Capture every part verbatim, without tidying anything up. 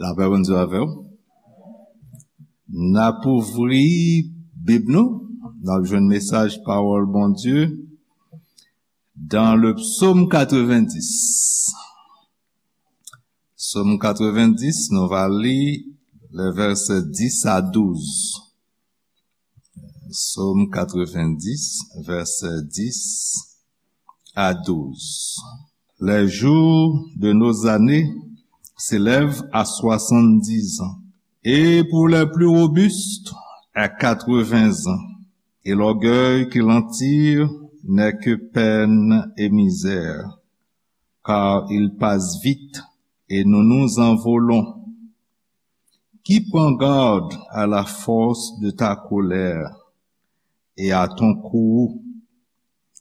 Lapè Bondye avè w. N ap ouvri Bib nou. N ap jwenn mesaj pawòl Bondye dans le psaume quatre-vingt-dix. Psaume quatre-vingt-dix, nou va li le verset dix à douze. Psaume quatre-vingt-dix, verset dix à douze. Les jours de nos années s'élèvent à soixante-dix ans, et pour les plus robustes, à quatre-vingts ans. Et l'orgueil qui l'en tire n'est que peine et misère, car il passe vite et nous nous envolons. Qui prend garde à la force de ta colère et à ton courroux,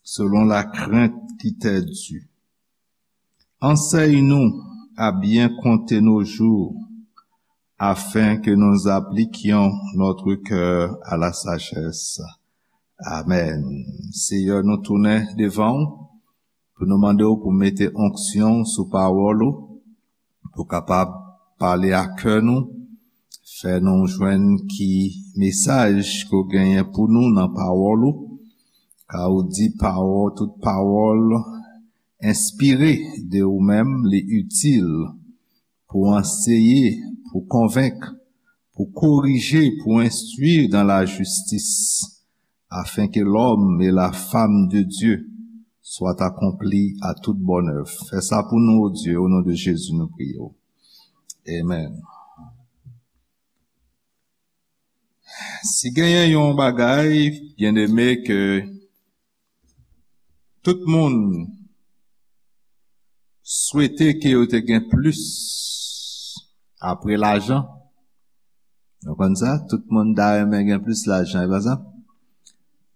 selon la crainte qui t'est due. Enseigne-nous à bien compter nos jours, afin que nous appliquions notre cœur à la sagesse. Amen. Seyè, nou tounen devan w pou nou mande w pou mete onksyon sou pawòl ou, pou kapab pale a kè nou, fè nou jwenn ki mesaj ke w genyen pou nou nan pawòl ou, ka ou di pawòl, tout pawòl enspire de ou menm, li itil pou anseye, pou konvenk, pou korije, pou enstwi dans la justice, afin que l'homme et la femme de Dieu soient accomplis à toute bonne œuvre. Fè sa pou nou, o Dye, o non de Jezi, nou priye w. Amen. Si genyen yon bagay, byeneme, ke tout moun swete ke yo te gen plis apre lajan. Nou konn sa? Tout moun ta renmen gen plis lajan, e pa sa?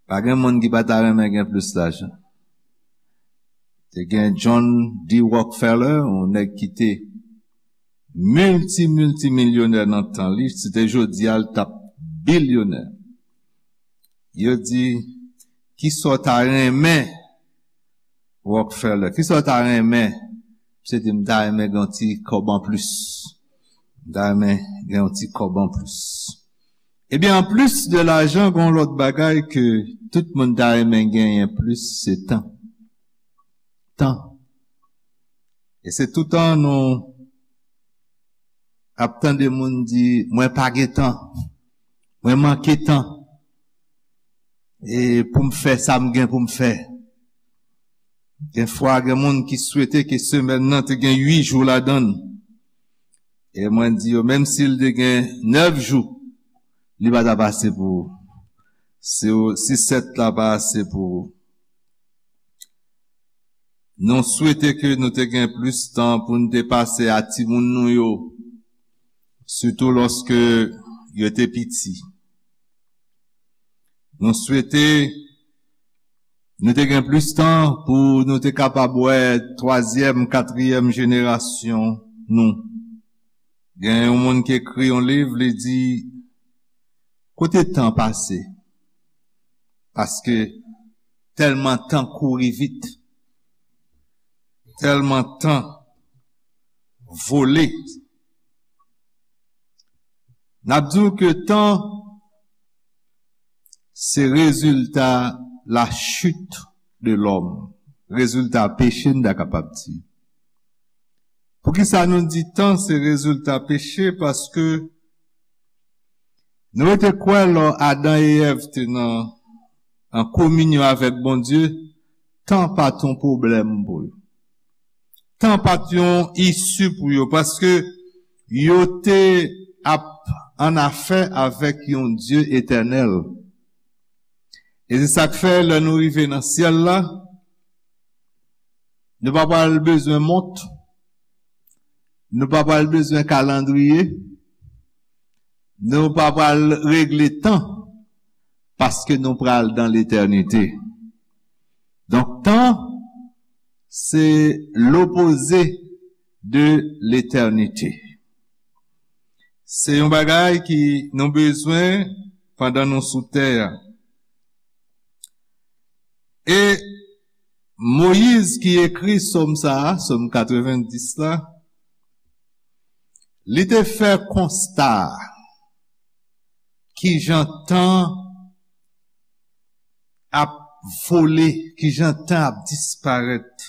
Pa gen moun ki pa ta renmen gen plis lajan. Te gen John D. Rockefeller, yon nèg ki te milti, milti milyonè nan tan li, si te jodi a, l t ap bilyonè. Yo di, "Kisa w ta renmen, Rockefeller? Kisa w ta renmen?" Misye di, "M ta renmen gen yon ti kòb an plis. M ta renmen gen yon ti kòb an plis." Ebyen, an plis de lajan, gen yon lòt bagay ke tout moun ta renmen genyen plis, se tan. Tan. E se toutan nou ap tande moun di, "Mwen pa gen tan. Mwen manke tan. E pou m fè sa m gen pou m fè." Gen fwa, gen moun ki swete ke semèn nan te gen uit jou ladan l. E mwen di yo, menm si l te gen nèf jou, li pa t ap ase pou ou. Si w, si sèt la pa ase pou ou. Nou swete ke nou te gen plis tan pou n te pase a timoun nou yo, sitou lòske yo te piti. Nou swete nou te gen plis tan pou nou te kapab wè twazyèm, katriyèm jenerasyon nou. Gen yon moun ki ekri yon liv, li di, "Kote tan pase?" Paske tèlman tan kouri vit, tèlman tan vole. N ap di w ke tan se rezilta la chute de l'homme, rezilta peche, n ta kapab di. Poukisa nou di tan se rezilta peche? Paske nou rete kwè lò Adan e Èv te nan, an kominyon avèk Bondye, tan pa t yon pwoblèm pou yo. Tan pa t yon isi pou yo, paske yo te ap an afè avèk yon Dye etènèl. E se sa k fè, lè nou rive nan syèl la, nou pa pral bezwen mont, nou pa pral bezwen kalandriye, nou pa pral regle tan, paske nou pral dan letènite. Donk, tan, se lopoze de letènite. Se yon bagay ki nou bezwen pandan nou sou tè a. E Moyiz ki ekri sòm sa a, sòm katrevendis la, Li te fè konsta kijan tan ap vole, kijan tan ap disparèt,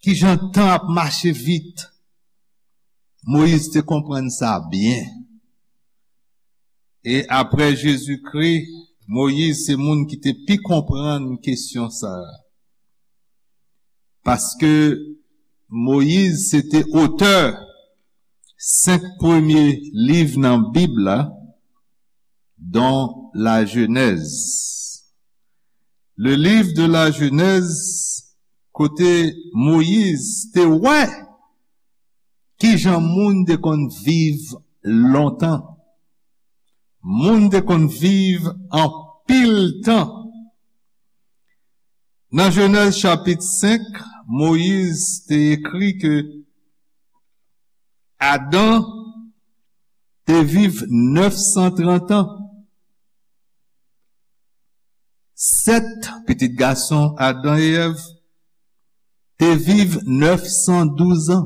kijan tan ap mache vit. Moyiz te konprann sa byen. E apre Jezikri, Moyiz se moun ki te pi konprann kesyon sa a. Paske Moyiz se te otè senk premye liv nan Bib la, dont la Genèse. Le livre de la Genèse, kote Moyiz te wè kijan moun te konn viv lontan. Moun te konn viv anpil tan. Nan Jenèz chapit senk, Moyiz te ekri ke Adan te viv nèf san trant an. Sèt, pitit gason Adan e Èv, te viv nèf san douz an.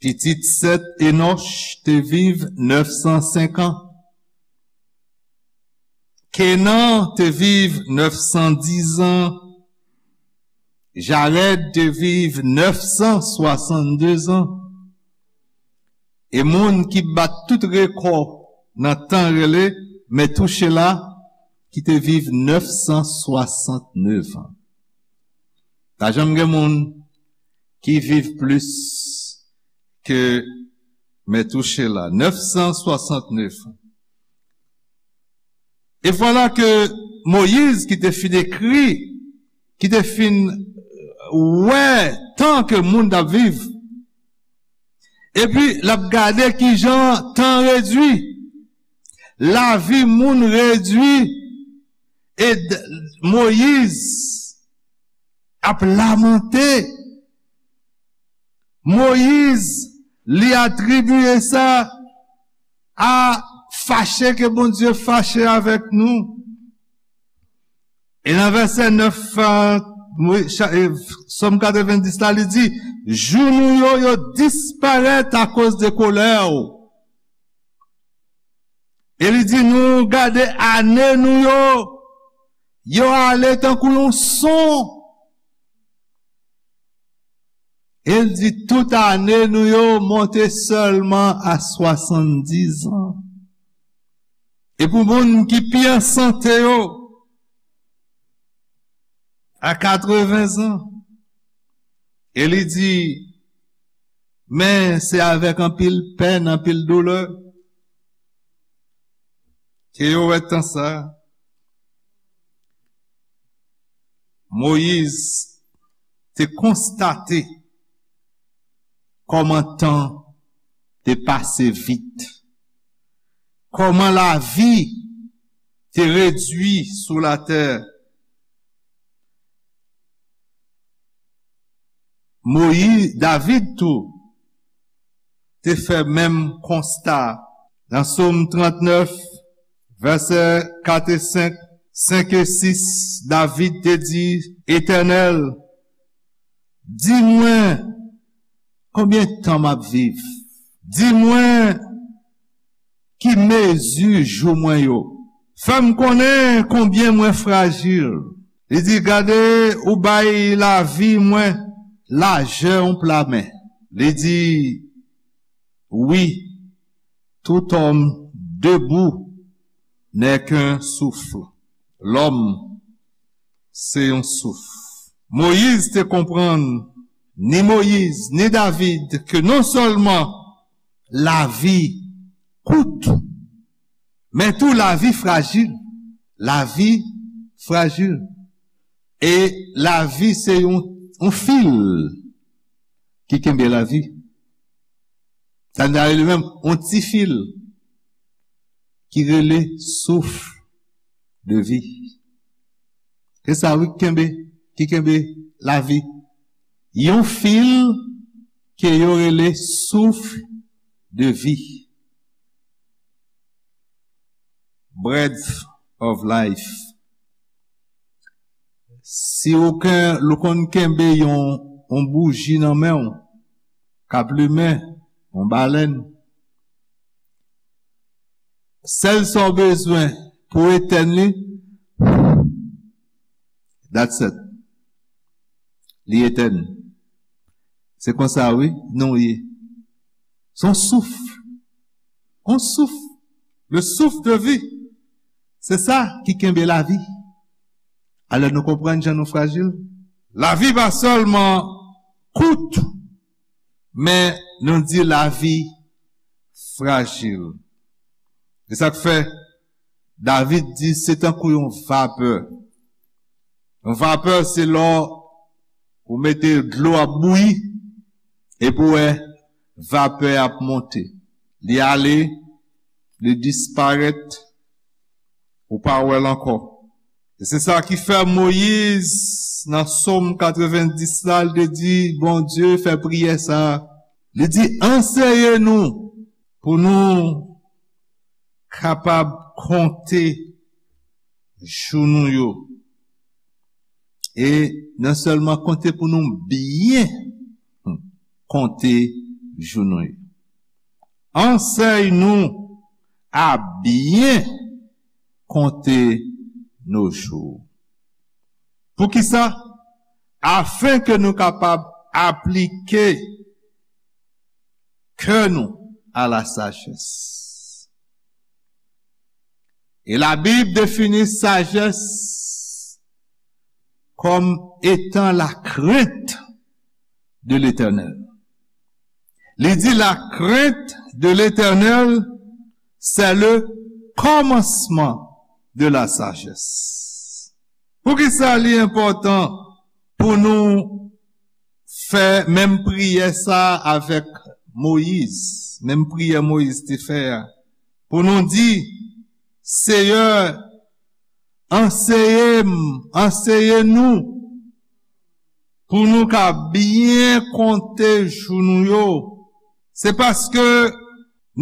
Pitit Sèt, Enòch, te viv nèf san senk an. Kenan te viv nèf san diz an. Jarèd te viv nèf san swasanndez an. E moun ki bat tout rekò nan tan rele Metouchela, ki te viv nèf san swasantnèf an. Pa janm gen moun ki viv plis ke Metouchela, nèf san swasantnèf an. E vwala ke Moyiz, ki te fin ekri, ki te fin wè tan ke moun t ap viv, epi l ap gade kijan tan redui, lavi moun redui, e d-, Moyiz ap lamante. Moyiz, li atribye sa a fache ke Bondye fache avèk nou. E nan vèsè nèf, a, Mo-, cha-, e, Sòm katrevendis la, li di, jou nou yo, yo disparèt akoz de kolè w. E li di nou, gade ane nou yo, yo ale tankou yon son. E l di tout ane nou yo monte sèlman a swasanndis an. E pou moun ki pi an sante yo, a katreven zan. E li di, men se avèk anpil pèn, anpil doulè ke yo wè tan sa. Moyiz te konstate kòman tan te pase vit, kòman lavi te redui sou latè. Moyiz, David tou, te fè menm konsta. Nan Sòm trannèf, vèsè kat e senk, senk e sis, David te di, Etènèl, di mwen konbyen tan m ap viv. Di mwen ki mezi jou mwen yo. Fè m konnen konbyen mwen frajil. Li di, gade, ou bay lavi mwen lajè yon pla men. Li di, wi, tout homme debout n'est qu'un souffle. Lòm se yon souf. Moyiz te konprann, ni Moyiz, ni David, ke non sèlman lavi kout, men tou lavi frajil. Lavi frajil. E lavi se yon, yon fil ki kenbe lavi. Sa n ta rele menm yon ti fil ki rele souf de vi. Se sa wi ki kenbe, ki kenbe lavi. Yon fil ke yo rele souf de vi. Breath of life. Si ou ken-, ou konn kenbe yon, yon bouji nan men w, k ap limen, yon balèn. Sèl sa w bezwen pou etèn li, that's it. Li etèn. Se konsa, wi, nou ye. Se yon souf. Yon souf. Le souffle de vie. Se sa ki kenbe lavi. Alò nou konprann jan nou frajil. Lavi pa sèlman kout, men nou di lavi frajil. Se sa k fè David di se tankou yon vapè. Yon vapè se lè ou mete dlo ap bouyi, epi w wè vapè ap monte. Li ale, li disparèt, ou pa wè l ankò. E se sa ki fè Moyiz, nan Sòm katrevenndis la, li te di Bondye, fè priyè sa a. Li di, anseye nou pou nou kapab konte jou nou yo. E non sèlman konte pou nou byen konte jou nou yo. Ansèy nou a byen konte nos jours. Poukisa? Afin ke nou kapab aplike kè nou à la sagesse. Et la Bible définit sagesse comme étant la crainte de l'Éternel. Li di la crainte de l'Éternel, c'est le commencement de la sagesse. Poukisa li enpòtan pou nou fè menm priyè sa avèk Moyiz, menm priyè Moyiz te fè a, pou nou di, Seyè, anseye m, anseye nou, pou nou ka byen konte jou nou yo. Se paske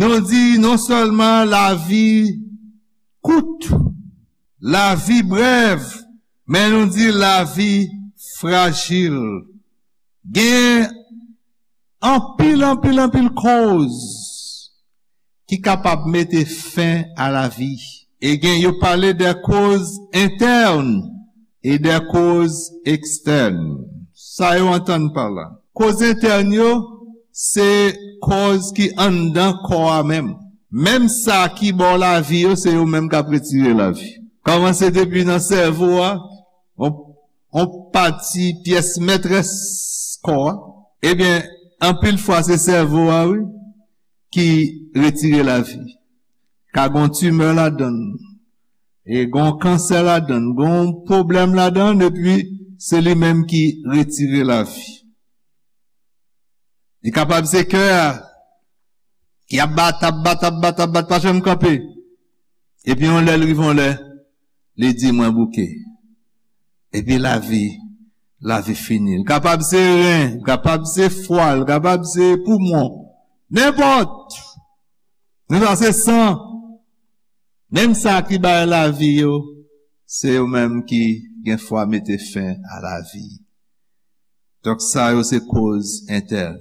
nou di non sèlman lavi kout, lavi brèv, men nou di lavi frajil. Gen anpil, anpil, anpil koz ki kapab mete fen a lavi. E gen, yo pale de koz entèn e de koz ekstèn. Sa yo antann pa la? Koz entèn yo, se koz ki anndan kò a menm. Menm sa ki ba w lavi yo, se yo menm k ap retire lavi. Kòmanse depi nan sèvo a, on, on pati pyès mètrès kò a. Ebyen, anpil fwa se sèvo a, wi, ki retire lavi. Ka gon timè ladan l, e gon kansè ladan l, gon pwoblèm ladan l, epi se li menm ki retire lavi. Li kapab se kè a, ki ap bat, ap bat, ap bat, ap bat, pa janm kanpe. Epi yon lè, l rive yon lè, li di, mwen bouke. Epi lavi, lavi fini. L kapab se ren, l kapab se fwa, l kapab se poumon. Nenpòt. Nou sa se san. Menm sa ki bay lavi yo, se yo menm ki gen fwa mete fen a lavi. Donk sa yo se koz entèn.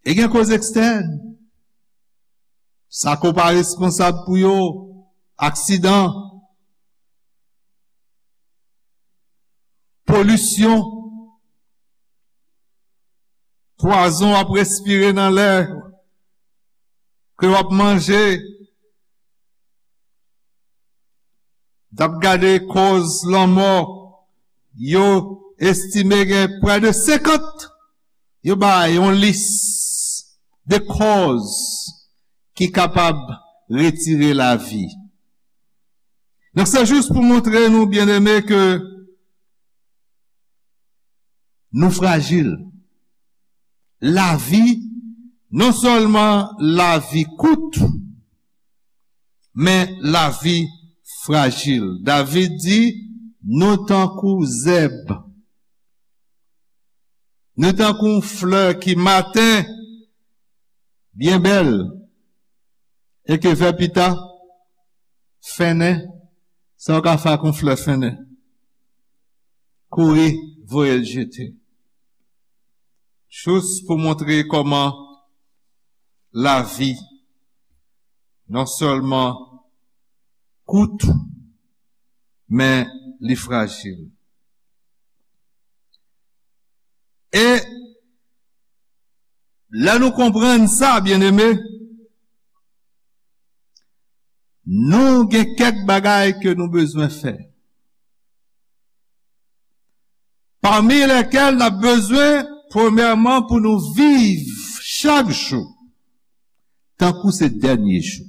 E gen koz ekstèn. Sa ke w pa responsab pou yo, aksidan, polisyon, pwazon w ap respire nan lè ke w ap manje. T ap gade kòz lanmò, yo estime gen prè de senkant. Yo bay yon lis de kòz ki kapab retire lavi. Donk, se jis pou montre nou, byeneme, ke nou frajil. Lavi, non sèlman lavi kout, men lavi frajil. David di, nou tankou zèb. Nou tankou yon flè ki maten byen bèl, e ke vè pita fennen, sa w ka fè ak yon flè fennen? Kouri, voye l jete. Jis pou montre kòman lavi non sèlman kout, men li frajil. E lè nou konprann sa, byeneme, nou gen kèk bagay ke nou bezwen fè. Pami lèkèl n ap bezwen, premyèman, pou nou viv chak jou tankou se dènye jou.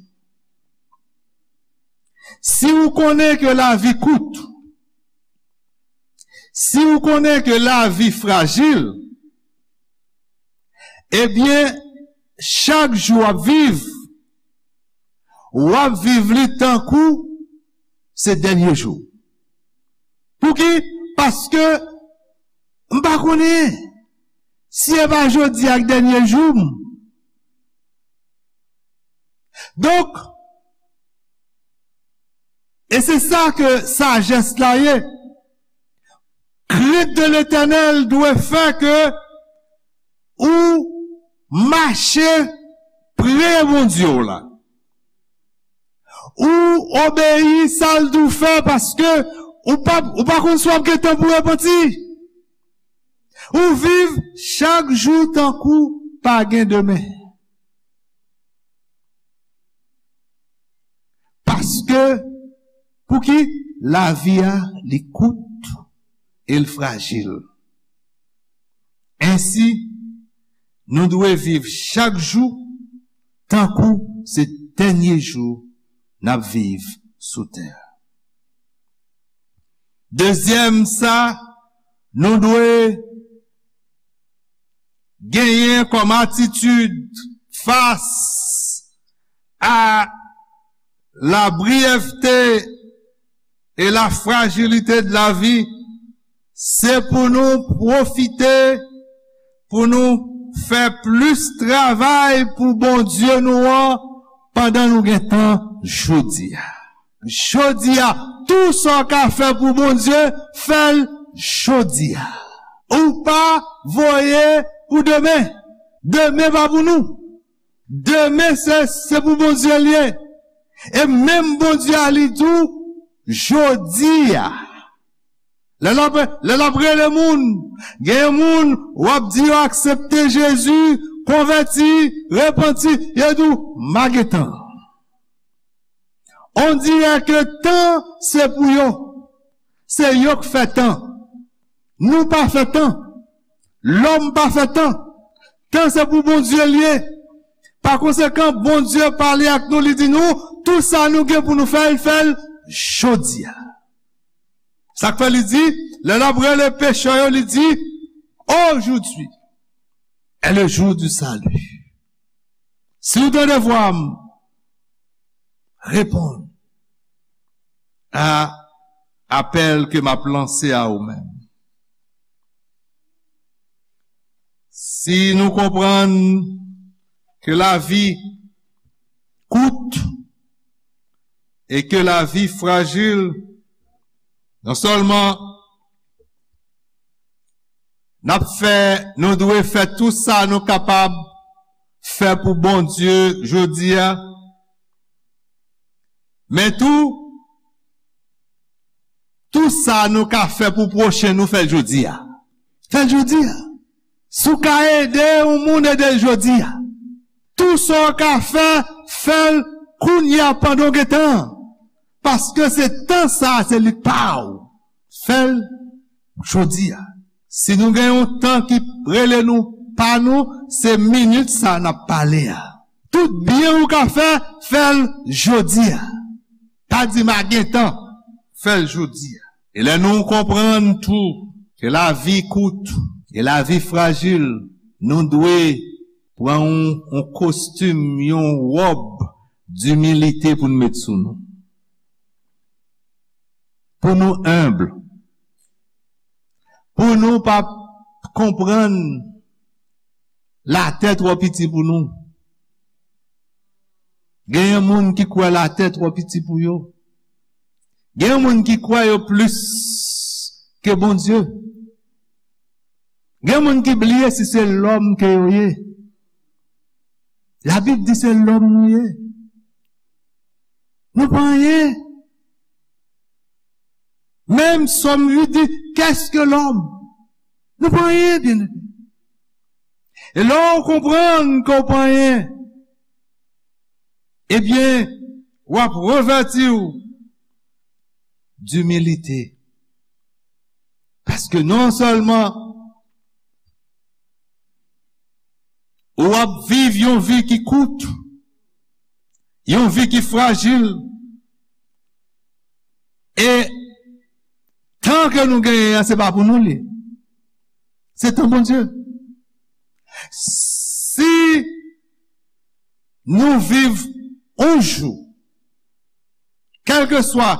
Si ou konnen ke lavi kout, si ou konnen ke lavi frajil, ebyen, chak jou w ap viv, w ap viv li tankou se dènye jou. Pouki? Paske m pa konnen si e pa jodi a k dènye jou m. Donk, e se sa ke sajès la ye. Crainte de l'Éternel dwe fè ke ou mache pre Bondye w la. Ou obeyi sa l di w fè, paske ou pa, ou pa konn si w ap gen tan pou repanti. Ou viv chak jou tankou pa gen demen. Paske, pouki? Lavi a, li kout e l frajil. Ensi, nou dwe viv chak jou tankou se dènye jou n ap viv sou tè a. Dezyèm sa, nou dwe genyen kòm atitid fas a la brièveté et la fragilité de la vie, se pou nou pwofite, pou nou fè plis travay pou Bondye nou an pandan nou gen tan jodi a. Jodi a, tou sa w ka fè pou Bondye, fè l jodi a. Ou pa voye pou demen. Demen pa pou nou. Demen se, se pou Bondye l ye. E menm Bondye a li di w, jodi a. Lè l ap, lè l ap rele moun, genyen moun w ap di yo aksepte Jezi, konvèti, repanti, yo di w, "M a gen tan." On dirè ke tan se pou yo. Se yo k fè tan. Nou pa fè tan. Lòm pa fè tan. Tan se pou Bondye l ye. Pa konsekan, Bondye pale ak nou, li di nou, tou sa nou gen pou nou fè, l fè l jodi a. Sa k fè li di, lè l ap rele pechè yo, li di, "Aujourd'hui est le jour du salut." Si w tande vwa m, reponn a apèl ke m ap lanse a ou menm. Si nou konprann ke lavi kout e ke lavi frajil, non sèlman n ap fè, nou dwe fè tou sa nou kapab fè pou Bondye jodi a, men tou, tou sa nou ka fè pou pwochen nou, fè l jodi a. Fè l jodi a. Si w ka ede yon moun, ede l jodi a. Tou sa w ka fè, fè l kounye a pandan w gen tan. Paske se tan sa a, se li pa w. Fè l jodi a. Si nou gen yon tan ki rele nou pa nou, se minit sa a n ap pale a. Tout byen ou ka fè, fè l jodi a. Pa di m a gen tan, fè l jodi a. E lè nou konprann tou ke lavi kout e lavi frajil, nou dwe pran yon, yon kostim, yon wòb dimilite pou n met sou nou. Pou nou enb. Pou nou pa konprann latè twò piti pou nou. Genyen moun ki kwè latè twò piti pou yo. Genyen moun ki kwè yo plis ke Bondye. Gen moun ki bliye si se lòm ke yo ye. Labib di se lòm nou ye. Nou pa anyen. Menm Sòm uit di, qu'est-ce que l'homme? Nou pa anyen, byeneme. E lè w konprann ke w pa anyen, ebyen, w ap revèti w dimilite. Paske non sèlman ou ap viv yon vi ki kout, yon vi ki frajil, e tan ke nou genyen an, se pa pou nou li. Se tan Bondye. Si nou viv yon jou, kèlkeswa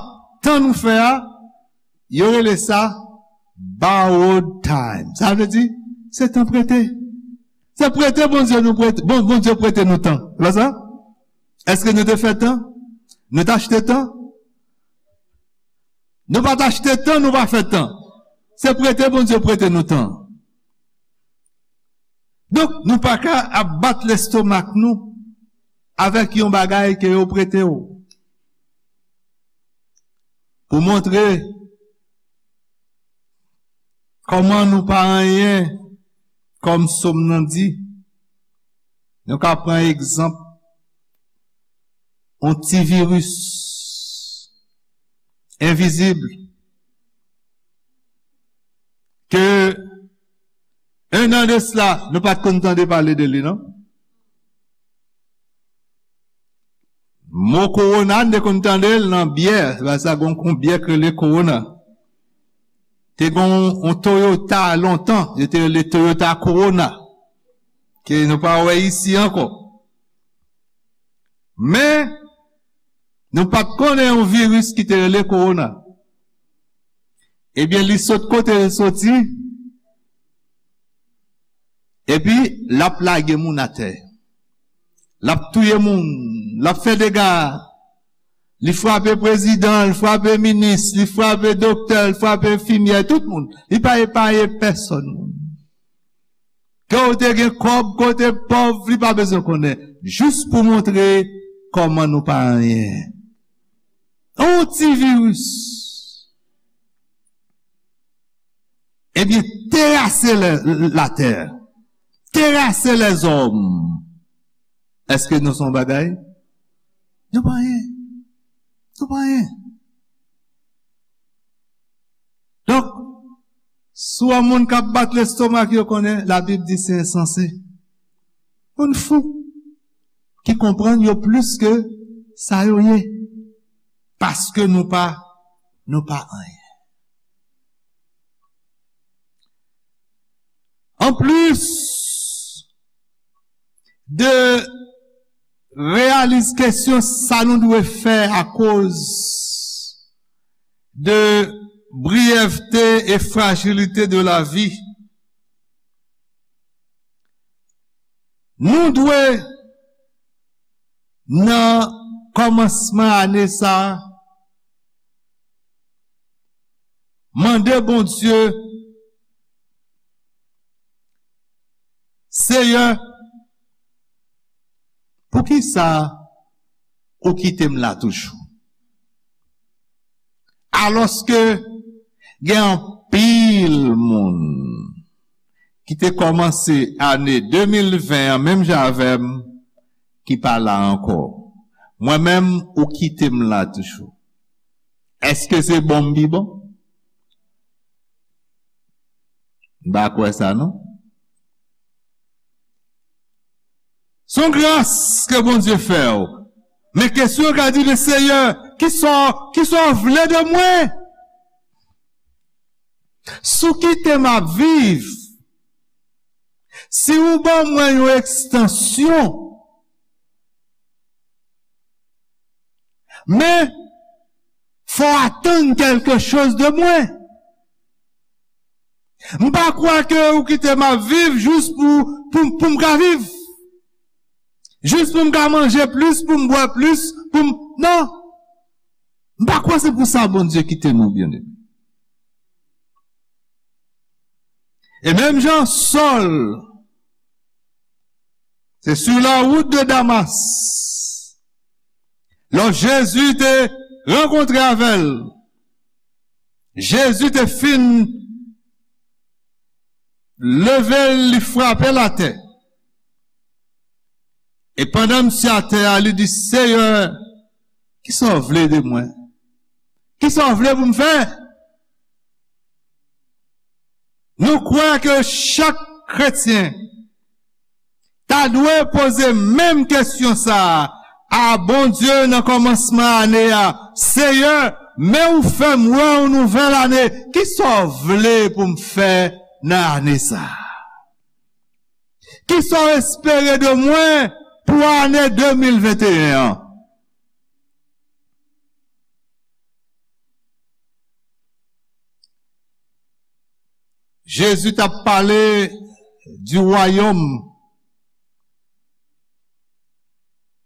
tan nou fè a, yo rele sa borrowed time. Sa vle di, se tan prete. Se prete Bondye nou prete, bon, Bondye prete nou tan. Se pa sa? Èske nou te fè tan? Nou te achte tan? Nou pa t achte tan, nou pa fè tan. Se prete Bondye prete nou tan. Donk, nou pa ka ap bat lestomak nou avèk yon bagay ke yo prete w. Pou montre kòman nou pa anyen, kòm Sòm nan di, nou ka pran egzanp yon ti viris envizib ke en an de sila, nou pa t konn tande pale de li, non? Mo kowona, n te konn tande l nan byè, se pa sa, gon, gon byè k rele kowona. Te gon yon Toyota lontan, yo te rele Toyota Corona, ke nou pa wè isi ankò. Men, nou pa t konnen yon viris ki te rele kowona. Ebyen, li sot kote l soti, epi l ap lage moun atè. L ap touye moun, l ap fè dega. Li frape prezidan, li frape minis, li frape doktè, li frape enfimyè, tout moun. Li pa epaye pèsòn moun. Ke w te gen kòb, ke w te pòv, li pa bezwen konnen. Jis pou montre kòman nou pa anyen. Yon ti viris. Ebyen, terase lè, latè. Terase lèzòm. Èske nou se yon bagay? Nou pa anyen. Nou pa anyen. Donk, si w wè moun k ap bat lestomak yo, konnen Labib di se ensanse. Moun fou ki konprann yo plis ke sa yo ye. Paske nou pa, nou pa anyen. Anplis de reyalize kesyon sa nou dwe fè akoz de briyèvte e frajilite de lavi, nou dwe nan kòmansman ane sa a, mande Bondye, Seyè, poukisa ou kite m la toujou? Alòske gen anpil moun ki te kòmanse ane de mil ven an menm jan avè m, ki pa la ankò. Mwen menm, ou kite m la toujou. Èske se bon m pi bon? M pa kwè sa, non. Se yon gras ke Bondye fè w. Men kesyon w ka di, men Seyè, kisa, kisa w vle de mwen? Si w kite m ap viv, si ou ban mwen yon ekstansyon, men, fò w atann kèlke choz de mwen. M pa kwè ke ou kite m ap viv jis pou, pou, pou m ka viv. Jis pou m ka manje plis, pou m bwè plis, pou m, non. M pa kwè se pou sa Bondye kite nou, byeneme. E menm jan Sòl, Se sur la route de Damas. Lè Jezi te rankontre avè l, Jezi te fin leve l, li frape l atè. E pandan misye atè a, li di, Seyè, kisa w vle de mwen? Kisa w vle pou m fè? Nou kwè ke chak kretyen ta dwe poze menm kesyon sa a a Bondye nan kòmansman ane a, Seyè, men ou fè m wè yon nouvèl ane, kisa w vle pou m fè nan ane sa a? Kisa w espere de mwen pou ane de mil venteyen an? Jezi t ap pale di wayòm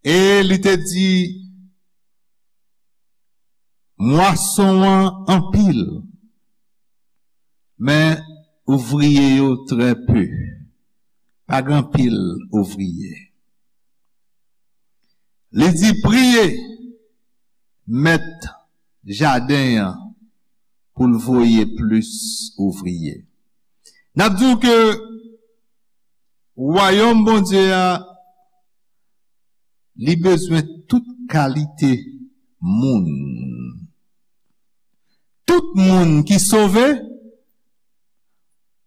e li te di, mwason an anpil, men ouvriye yo trè pe. Pa gen anpil ouvriye. Li di, priye mèt jaden an pou l voye plis ouvriye. N ap di w ke wayòm Bondye a, li bezwen tout kalite moun. Tout moun ki sove,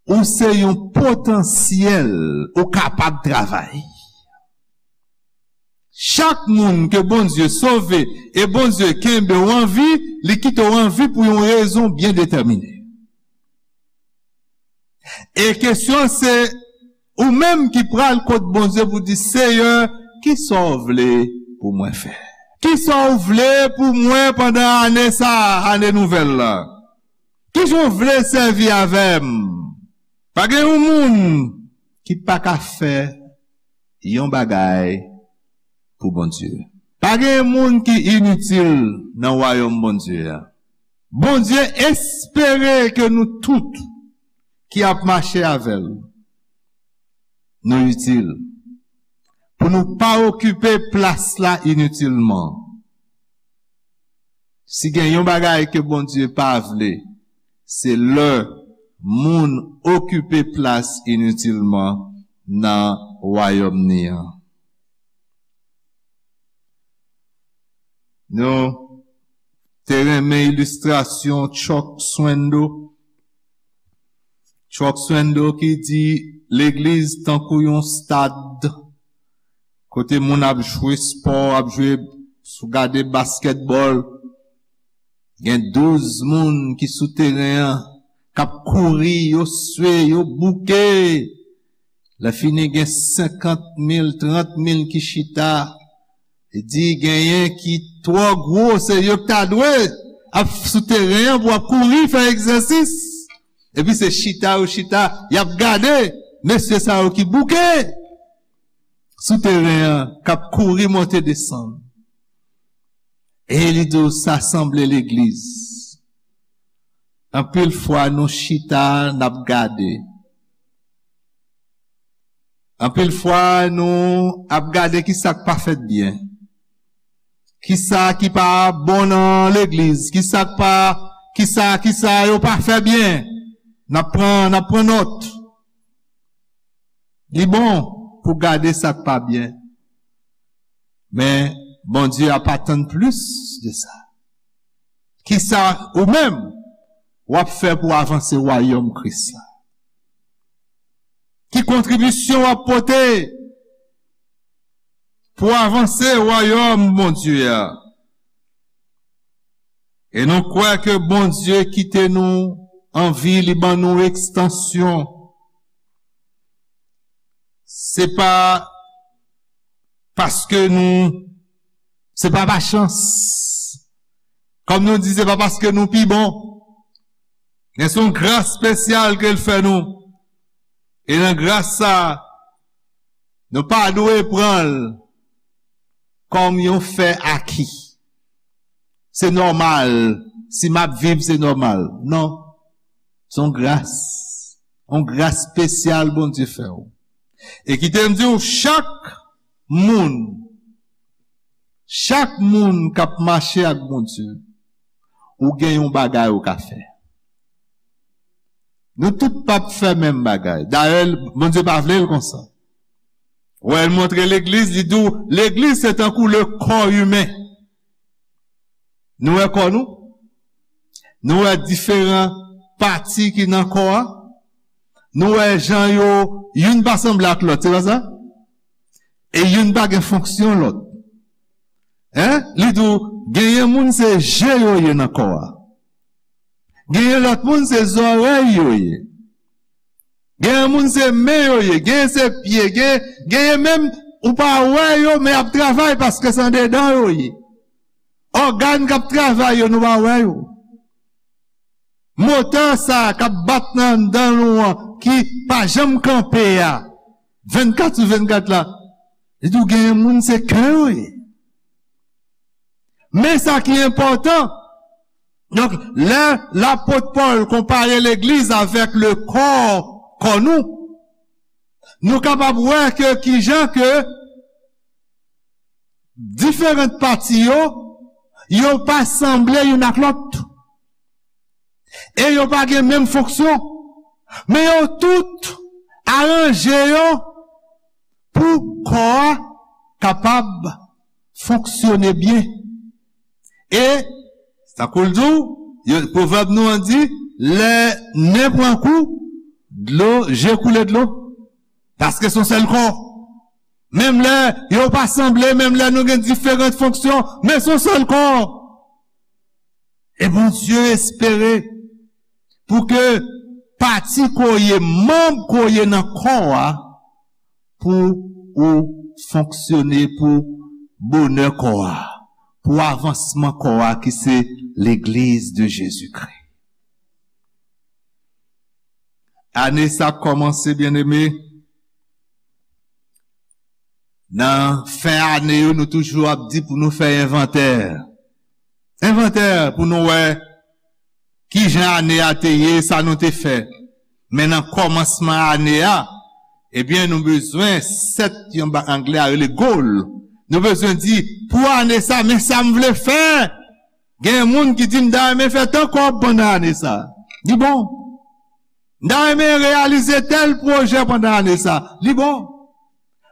ou se yon potansyèl, ou kapab travay. Chak moun ke Bondye sove e Bondye kenbe w an vi, li kite w an vi pou yon rezon byen detèmine. E kesyon se, ou menm ki pral kot Bondye pou di, Seyè, kisa w vle pou mwen fè? Kisa w vle pou mwen pandan ane sa a, ane nouvèl la? Kijan w vle sèvi avè m? Pa gen yon moun ki pa ka fè yon bagay pou Bondye. Pa gen moun ki initil nan wayòm Bondye a. Bondye espere ke nou tout ki ap mache avè l, nou itil. Pou nou pa okipe plas la initilman. Si gen yon bagay ke Bondye pa vle, se lè moun okipe plas initilman nan wayòm ni an. Nou te renmen ilistrasyon Chuck Swindoll. Chuck Swindoll ki di, legliz tankou yon stad kote moun ap jwe spò, ap jwe, sou gade baskètbòl. Gen douz moun ki sou teren an, k ap kouri, yo swe, yo bouke. Lè fini, gen senkant mil, trant mil ki chita. E di, genyen ki twò gwo, se yo ki ta dwe ap sou teren an pou ap kouri, fè egzèsis. Epi se chita yo chita, y ap gade mesye sa yo ki bouke sou teren an, k ap kouri monte desann. E li di w, sa sanble legliz. Anpil fwa nou chita, n ap gade. Anpil fwa nou ap gade ki sa k pa fèt byen. Ki sa ki pa bon nan legliz. Ki sa k pa, ki sa, ki sa yo pa fè byen. N ap pran, n ap pran nòt. Li bon pou gade sa k pa byen. Men Bondye ap atann plis de sa. Ki sa ou menm w ap fè pou avanse wayòm Kris la? Ki kontribisyon w ap pote pou avanse wayòm Bondye a? E nou kwè ke Bondye kite nou an vi, li ban nou ekstansyon. Se pa paske nou, se pa pa chans. Kòm nou di, se pa paske nou pi bon. Men se yon gras espesyal ke l fè nou. E nan gras sa, nou pa dwe pran l kòm yon fè aki. Se nòmal, si m ap viv, se nòmal. Non. Se yon gras. Yon gras espesyal Bondye fè w. E kite m di w, chak moun, chak moun k ap mache ak Bondye, ou gen yon bagay ou ka fè. Nou tout p ap fè menm bagay. Dayè, Bondye pa vle l konsa. Wè, l montre legliz, li di w, legliz se tankou le kò imen. Nou wè kò nou? Nou wè diferan pati ki nan kò a? Nou wè jan yo, youn pa sanble ak lòt, se pa sa? E youn pa gen fonksyon lòt. Hein? Li di w, genyen moun se je yo ye nan kò a. Genyen lòt moun se zòrèy yo ye. Genyen moun se men yo ye, genyen se pye, genyen, genyen menm ou pa wè yo, men y ap travay paske se andedan yo ye. Ògàn k ap travay yo, nou pa wè yo. Motè sa a k ap bat nan anndan nou an, ki pa janm kanpe a, vennkat sou vennkat la, li di w genyen moun se kè yo ye. Men sa ki enpòtan, donk, lè lapot Pòl konpare legliz avèk le kò, kò nou, nou kapab wè ke kijan ke diferan pati yo, yo pa sanble youn ak lòt. E yo pa gen menm fonksyon. Men yo tout aranje yo pou kò a kapab fonksyone byen. E, tankou l di w, yo, pwovèb nou an di, lè nen pran kou, dlo, je koule dlo. Paske se yon sèl kò. Menm lè yo pa sanble, menm lè nou gen diferan fonksyon, men se yon sèl kò. E Bondye espere pou ke pati ke w ye, manm ke w ye nan kò a, pou ou fonksyone pou bonè kò a, pou avansman kò a ki se Legliz de Jezikri. Ane sa ap kòmanse, byeneme. Nan fen ane yo, nou toujou ap di pou nou fè envantè. Envantè pou nou wè kijan ane a te ye, sa nou te fè. Men nan kòmansman ane a, ebyen, nou bezwen sèt, yon ba-, anglè a rele goal. Nou bezwen di, pou ane sa, men sa m vle fè. Gen moun ki di, "M ta renmen fè tan kòb pandan ane sa." Li bon. "M ta renmen reyalize tèl pwojè pandan ane sa." Li bon.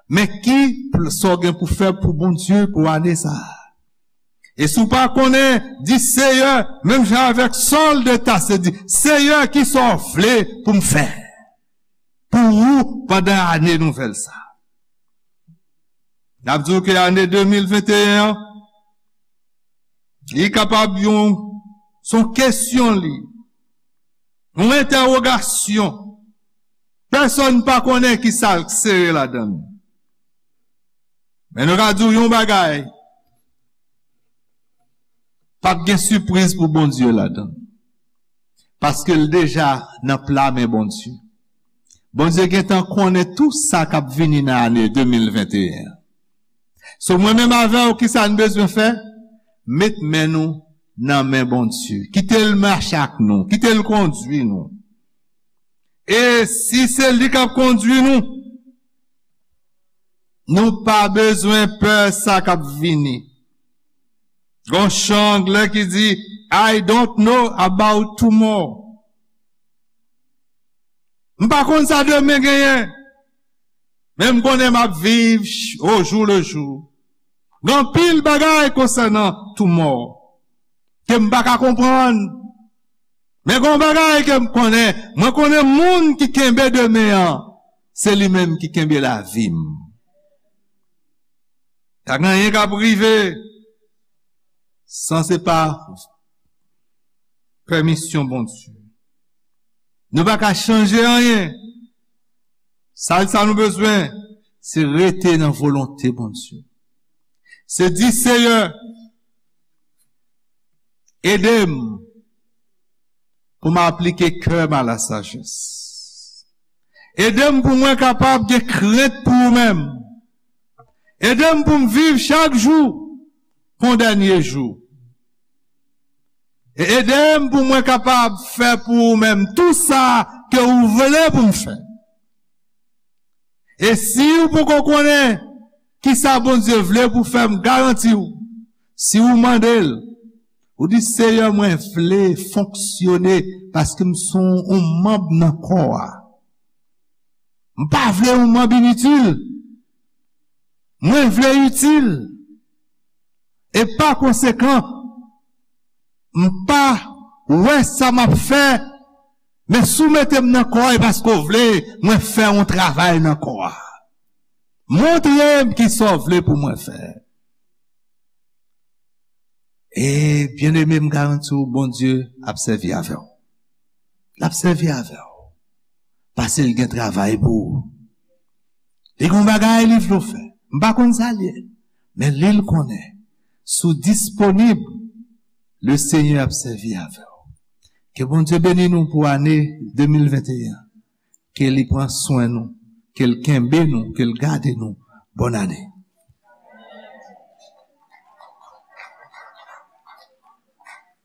Men ki pl-, sa w gen pou fè pou Bondye pou ane sa a? E si w pa konnen, di, "Seyè," menm jan avèk Sòl de Tase, di, "Seyè, ki sa w vle pou m fè pou ou pandan ane nouvèl sa a?" N ap di w ke ane de mil venteyen an, li kapab yon, se yon kesyon li, yon entèwogasyon. Pèsonn pa konnen ki sa k sere ladan l. Men nou ka di w yon bagay, p ap gen sipriz pou Bondye ladan l. Paske l deja nan pla men Bondye. Bondye gentan konnen tou sa k ap vini nan ane de mil venteyen an. So, mwen menm avè w, ki sa n bezwen fè? Met men nou nan men Bondye. Kite l mache ak nou. Kite l kondui nou. E si se li k ap kondui nou, nou pa bezwen pè sa k ap vini. Gon chan anglè ki di, "I don't know about tomorrow." M pa konn sa demen genyen, men m konnen m ap viv ch-, au jour le jour. Gen anpil bagay konsènan tomorrow ke m pa ka konprann. Men gen yon bagay ke m konnen, mwen konnen moun ki kenbe demen an, se li menm ki kenbe lavi m. Pa gen anyen k ap rive san se pa pèmisyon Bondye. Nou pa ka chanje anyen. Sa, sa nou bezwen, se rete nan volonte Bondye. Se di, "Seyè, ede m pou m aplike kè m a la sajès. Ede m pou mwen kapab gen krent pou ou menm. Ede m pou m viv chak jou kon dènye jou. E ede m pou mwen kapab fè pou ou menm tou sa ke ou vle pou m fè." E si ou poko konnen Kisa Bondye vle pou fè? M garanti w, si w mande l, ou di, Seyè, mwen vle fonksyone paske m se yon manm nan kò a. M pa vle yon manm initil. Mwen vle itil. E pa konsekan, m pa wè sa m ap fè, men si w mete m nan kò a, e paske w vle mwen fè yon travay nan kò a. Montre m kisa w vle pou mwen fè. E byeneme, m garanti w, Bondye ap sèvi avè w. L ap sèvi avè w. Paske l gen travay pou ou. Li gen yon bagay li vle w fè. M pa konn sa l ye. Men li l konnen. Si w disponib, Lesenyè ap sèvi avè w. Ke Bondye beni nou pou ane de mil venteyen. Ke li pran swen nou. Ke l kenbe nou. Ke l gade nou. Bòn ane.